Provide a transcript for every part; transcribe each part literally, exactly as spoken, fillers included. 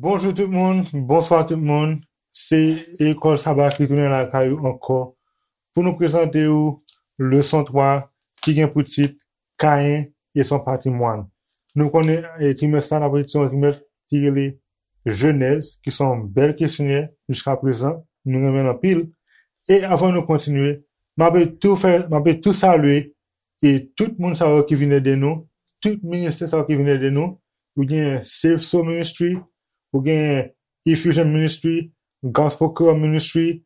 Bonjou tout moun, bonswa tout moun. Se Lekòl Saba ki tounen lakay ou ankò pou nou prezante ou leson twa ki gen pou tit Kayen e son patrimwàn. Nou konnen, e, trimès sa, n ap etidye yon trimès ki rele Jenèz, ki se yon bèl kesyonè jiska prezan, nou renmen l anpil. E avan nou kontinye, m ap tou fè, m ap tou salye e tout moun sa yo ki vin ede nou, tout ministè sa yo ki vin ede nou. Ou gen Save Soul Ministry, ou gen Effusion Ministry, Gospel Creole Ministry,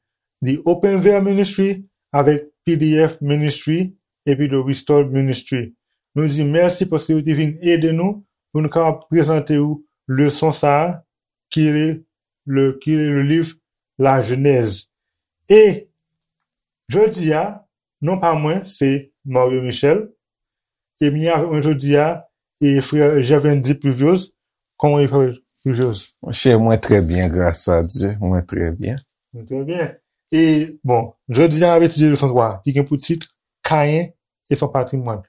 The Open Veil Ministry, avèk P D F Ministry, epi The Restored Ministry. Nou di mèsi paske yo te vin ede nou pou nou kapab prezante ou leson sa a, ki le, le, ki le, le liv La Jenèz. E jodi a, non pa mwen, se Mario Michel. E m gen avèk mwen jodi a, e frè Gervendy Pluviose. Kòman w ye, frè Pluviose? Monchè, mwen trè byen, gras a Dye. Mwen trè byen. Mwen trè byen. E, bon, jodi a, n ap etidye leson twa, ki gen pou tit Kayen e son patrimwàn.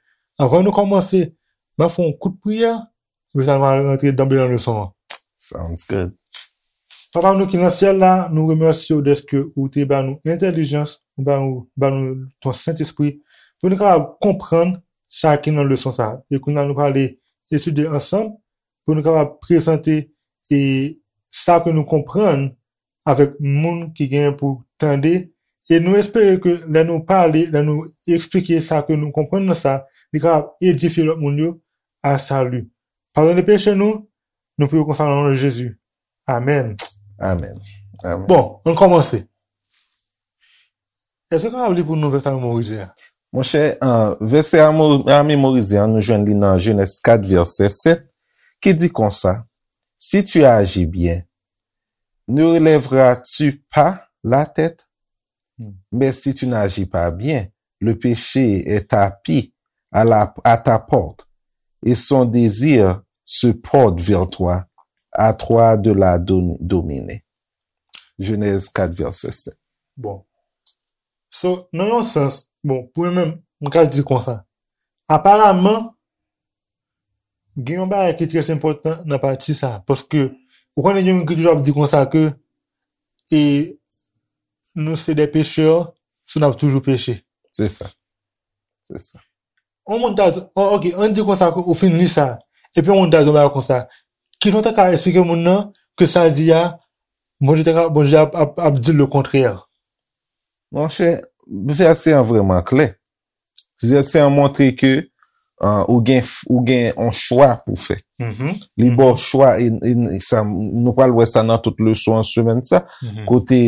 Avan nou kòmanse, m ap fè yon kout priyè, epi sa nou va rantre danble nan leson an. Sounds good. Papa nou ki nan syèl la, nou remèsye w dèske ou te ba nou entèlijans, ou ba nou, ba nou ton Sentespri, pou nou kapab konprann sa ki nan leson sa. E kounye a nou prale etidye ansanm, pou nou kapab prezante e sa ke nou konprann avèk moun ki gen pou tande. E nou espere ke lè nou pale, lè nou eksplike sa ke nou konprann nan sa, li kapab edifye lòt moun yo a sali. Padone peche nou, nou priye konsa nan non de Jezi. Amèn. Amèn. Amèn. Bon, ann kòmanse. Èske w kapab li pou nou vèsè a memorize a? Monchè, uh, vèsè a mo- a memorize an, nou jwenn li nan Jenèz kat, vèsè sèt, ki di konsa, Si tu agis bien, ne relèveras-tu pas la tête? Hmm. Mais si tu n'agis pas bien, le péché est tapi à la, à ta porte, et son désir se porte vers toi, à toi de la dom- dominer. Jenèz kat, vèsè sèt. Bon. So, nan yon sans, bon, pou mwen menm, m ka di konsa. Aparaman, gen yon bagay ki trè enpòtan nan pati sa. Paske, ou konnen gen moun ki toujou ap di konsa ke, e, nou se de pechè, so n ap toujou peche. Se sa. Se sa. Yon moun ta di, oh, ok, ann di konsa ke ou fin li sa. Epi yon moun ta di yon bagay konsa. Kijan w ta ka eksplike moun nan ke sa l di a, Bondye ta ka, Bondye ap, ap, ap di lekontrè? Monchè, vèsè an vrèman klè. Vèsè an montre ke, ah, ou gen, ou gen yon chwa pou fè. Mhm. Li ba w chwa, e, e sa, nou pral wè sa nan tout leson an semèn sa. Mhm. Kote,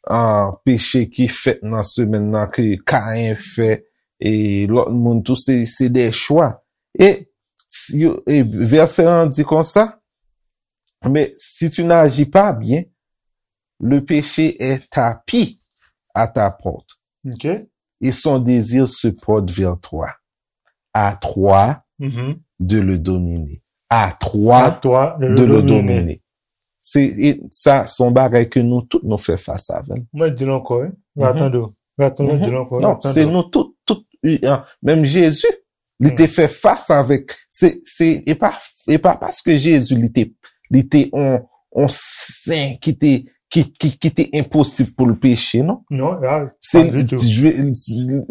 ah, peche ki fèt nan semèn nan ke Kayen fè, e lòt moun tou, se, se de chwa. E, si yo- e vèsè an di konsa, mais si tu n'agis pas bien, le péché est tapi à ta porte. Ok. Et son désir se porte vers toi. À toi Mhm. de le dominer. À toi À toi de de le le dominer. dominer. Se, e sa, se yon bagay ke nou tout nou fè fas avè l. Mwen di l ankò, wi. Mwen Mhm. tande w. Mwen tande w, di l ankò, Non, mwen tande se w. nou tout, tout, e, an, menm Jezi, li Hmm. te fè fas avèk, se, se, e pa, e pa paske Jezi, li te, li te on, on sen ki te, ki, ki, ki te enposib pou l peche, non. Non, ya, Se pa ditou. Je-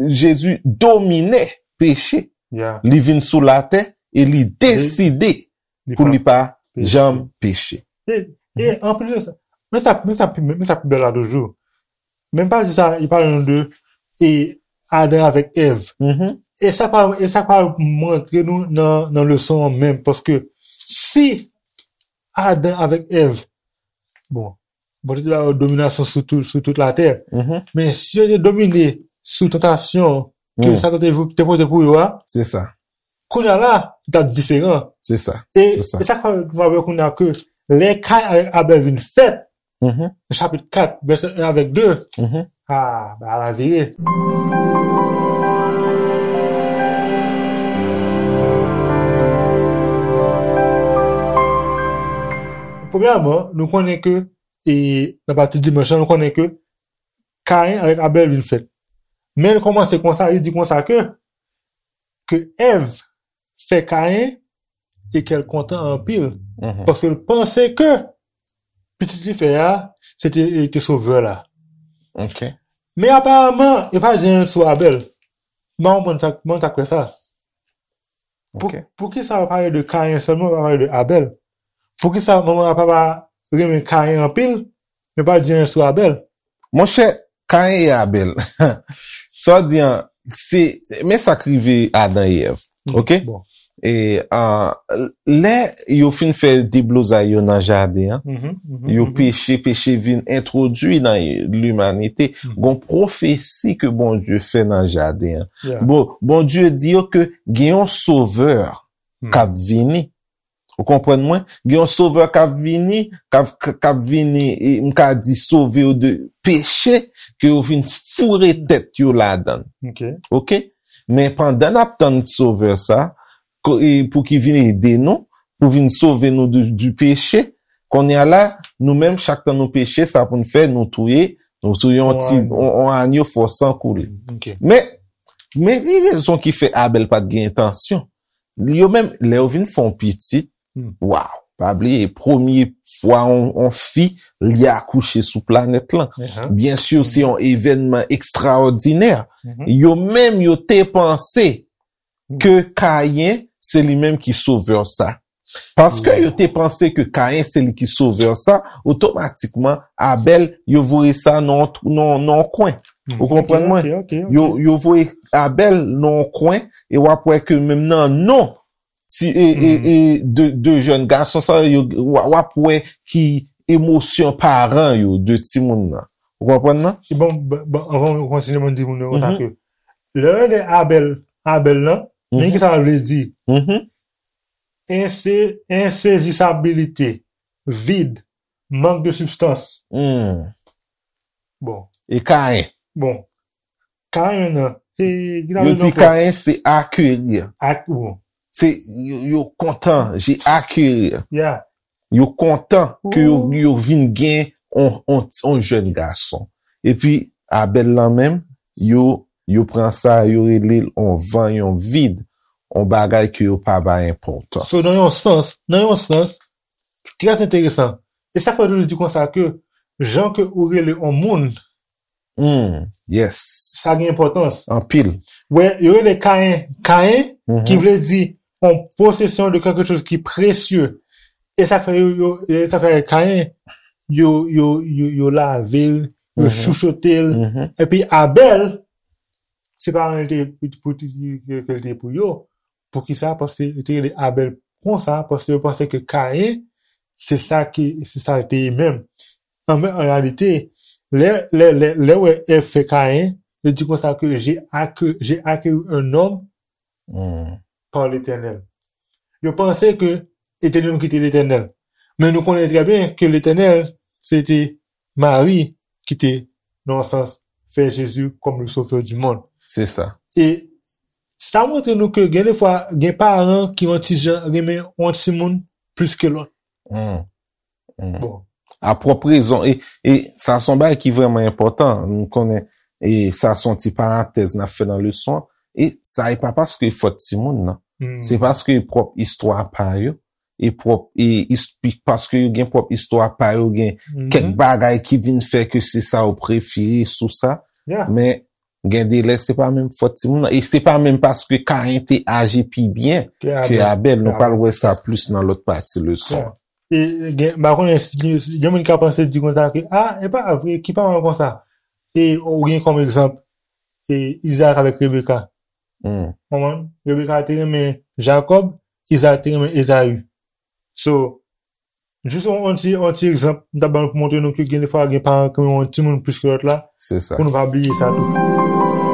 Jezi domine peche. Ya. Li vin sou latè e li Li- deside li pou pa li pa peche. janm peche. E, e Mhm. anplis de sa, men sa, men sa, men sa pi bèl la toujou. Menm pa di sa, li pale nou de, e, Adan avèk Èv. Mhm. E sa pa, e sa pa montre nou nan, nan leson an menm, paske si Adan avèk Èv, bon, Bondye te ba yo dominasyon sou tout, sou tout latè, Mhm. men si yo te domine sou tantasyon ke Mm. Satan te, te pote pou yo a, Se sa. kounye a la, li t ap diferan. Se sa. E, Se sa. e sa k fè nou wè kounye a ke lè Kayen avèk Abèl vin fèt, Mhm. nan chapit kat, vèsè en avèk de, Mhm. ah, ba la vire. Premyèman, nou konnen ke, e nan pati dimanch la, nou konnen ke Kayen avèk Abèl vin fèt. Men l kòmanse konsa, li di konsa ke, ke Èv fè Kayen e kè l kontan anpil. Mhm. Paske l panse ke pitit li fè a, se te, te sovè la. Ok. Men aparaman, yo pa di anyen sou Abèl. M pa konprann sa, m pa konn sa k fè sa. Pou, Ok. Poukisa yo pale de Kayen sèlman, yo pa pale de Abèl? Poukisa manman ak papa renmen Kayen anpil, men pa di anyen sou Abèl? Monchè, Kayen e Abèl. Sa w di an, se, men sa k rive Adan e Èv. Mhm, Ok? Bon. E, ah, lè yo fin fè deblozay yo nan jaden an, Mhm, mhm, yo mhm. peche, peche vin entwodui nan limanite. Mhm. Gon pwofesi ke Bondye fè nan jaden an. Yeah. Bon, Bondye di yo ke gen yon sovè Hmm. k ap vini. Ou konprann mwen? Gen yon sovè k ap vini, k ap, k ap vini, e, m ka di sove yo de peche, ke yo vin foure tèt yo ladan l. Ok. Ok? Men pandan n ap tann sovè sa, ko-, e, pou ki vin ede nou, pou vin sove nou di, di peche, kounye a la, nou menm, chak tan nou peche, sa pou n fè, nou touye, nou touye yon Yon ti, agno. yon, yon agno fò san koule. Ok. Men, men ki rezon ki fè Abèl pa t gen entansyon? Yo menm, lè yo vin fè yon pitit, Hmm. waw, pa bliye, premye fwa yon, yon fi, li akouche sou planèt lan. Uh-huh. Byen si, se Hmm. yon evènman ekstraòdinè. Mhm. Yo menm, yo te panse Hmm. ke Kayen, se li menm ki sovè sa. Paske Wow. yo te panse ke Kayen, se li ki sovè sa, otomatikman, Abèl, yo voye sa nan, nan, nan yon kwen. Hmm. Ou konprann Ok, mwen? ok, ok, ok. Yo, yo voye Abèl nan yon kwen, e w ap wè ke menm nan non ti, e, e, Mhm. e de, de jèn gason sa yo, w, w ap wè ki emosyon paran yo de timoun nan. Ou konprann nan? Se bon, bon, bon, anvan nou kontinye, mwen di moun yo konsa Mhm. ke lè yo rele Abèl, Abèl lan, men Mhm. ki sa l vle di? Mhm. Ense-, ensezisabilite, vid, mank de sibstans. Hmm. Bon. E Kayen? Bon. Kayen nan, se, ki sa Yo vle di di ankò? Kayen se acquérir. Ak, bon. Se, yo, yo kontan, j'ai acquérir. Yeah. Yo kontan ke yo, Ooh. yo vin gen on, on, on jèn gason. Epi, Abèl lan menm, yo, yo pran sa, yo rele l on van, yon vid, on bagay ke yo pa bay enpòtans. So, nan yon sans, nan yon sans, trè enteresan. E sa fè yo toujou di konsa ke jan ke ou rele on moun, Hmm, yes. sa gen enpòtans. Anpil. Wè, yo rele Kayen, Kayen, Mhm. ki vle di on posesyon de quelque chose ki presye. E sa fè yo, yo, e sa fè Kayen, yo, yo, yo, yo lave l, yo Mhm. chouchote l. Mhm. Epi Abèl, se pa anyen l te pou, pou, pou, ke l te pou yo. Poukisa? Paske yo te rele Abèl konsa, paske yo panse ke Kayen, se sa ki, se sa l te ye menm. An, men, an reyalite, lè, lè, lè, lè w wè Èv fè Kayen, yo di konsa ke j'ai acquis, j'ai acquis un homme Hmm. par l'Éternel. Yo panse ke Etènèl ki te Letènèl. Men nou konnen trè byen ke Letènèl, se te Mari ki te, nan yon sans, fè Jezi kòm le Sauveur du monde. Se sa. E sa montre nou ke gen de fwa, gen paran ki yon ti jan renmen yon timoun plis ke lòt. Hmm. Hmm. Bon. A pwòp rezon. E, e sa se yon bagay ki vrèman enpòtan. Nou konnen, e sa se yon ti parantèz n ap fè nan leson an. E sa e pa paske e fòt timoun nan. Hmm. Se paske e pwòp istwa pa yo. E pwòp, e is-, pi-, paske yo gen pwòp istwa pa yo, gen Mhm. kèk bagay ki vin fè ke se sa yo prefere sou sa. Yeah. Men, gen de lè, se pa menm fòt timoun nan. E se pa menm paske Kayen te aji pi byen Ke ke Abèl. Abèl. Nou Ke pral Abèl. wè sa plis nan lòt pati leson an. Yeah. E, e gen, m pa konnen si gen, si gen moun ki ka panse di konsa ke, ah, e pa vre, ki paran konsa? E, ou gen kòm egzanp, e, Izaak avèk Rebeka. Hmm. Konprann? Rebeka te renmen Jakòb, Izaak te renmen Ezayi. So, jis yon, yon ti, yon ti egzanp, m t ap ba nou pou montre nou ke gen de fwa gen paran ki renmen yon timoun plis ke lòt la, Se sa. pou nou pa bliye sa tou.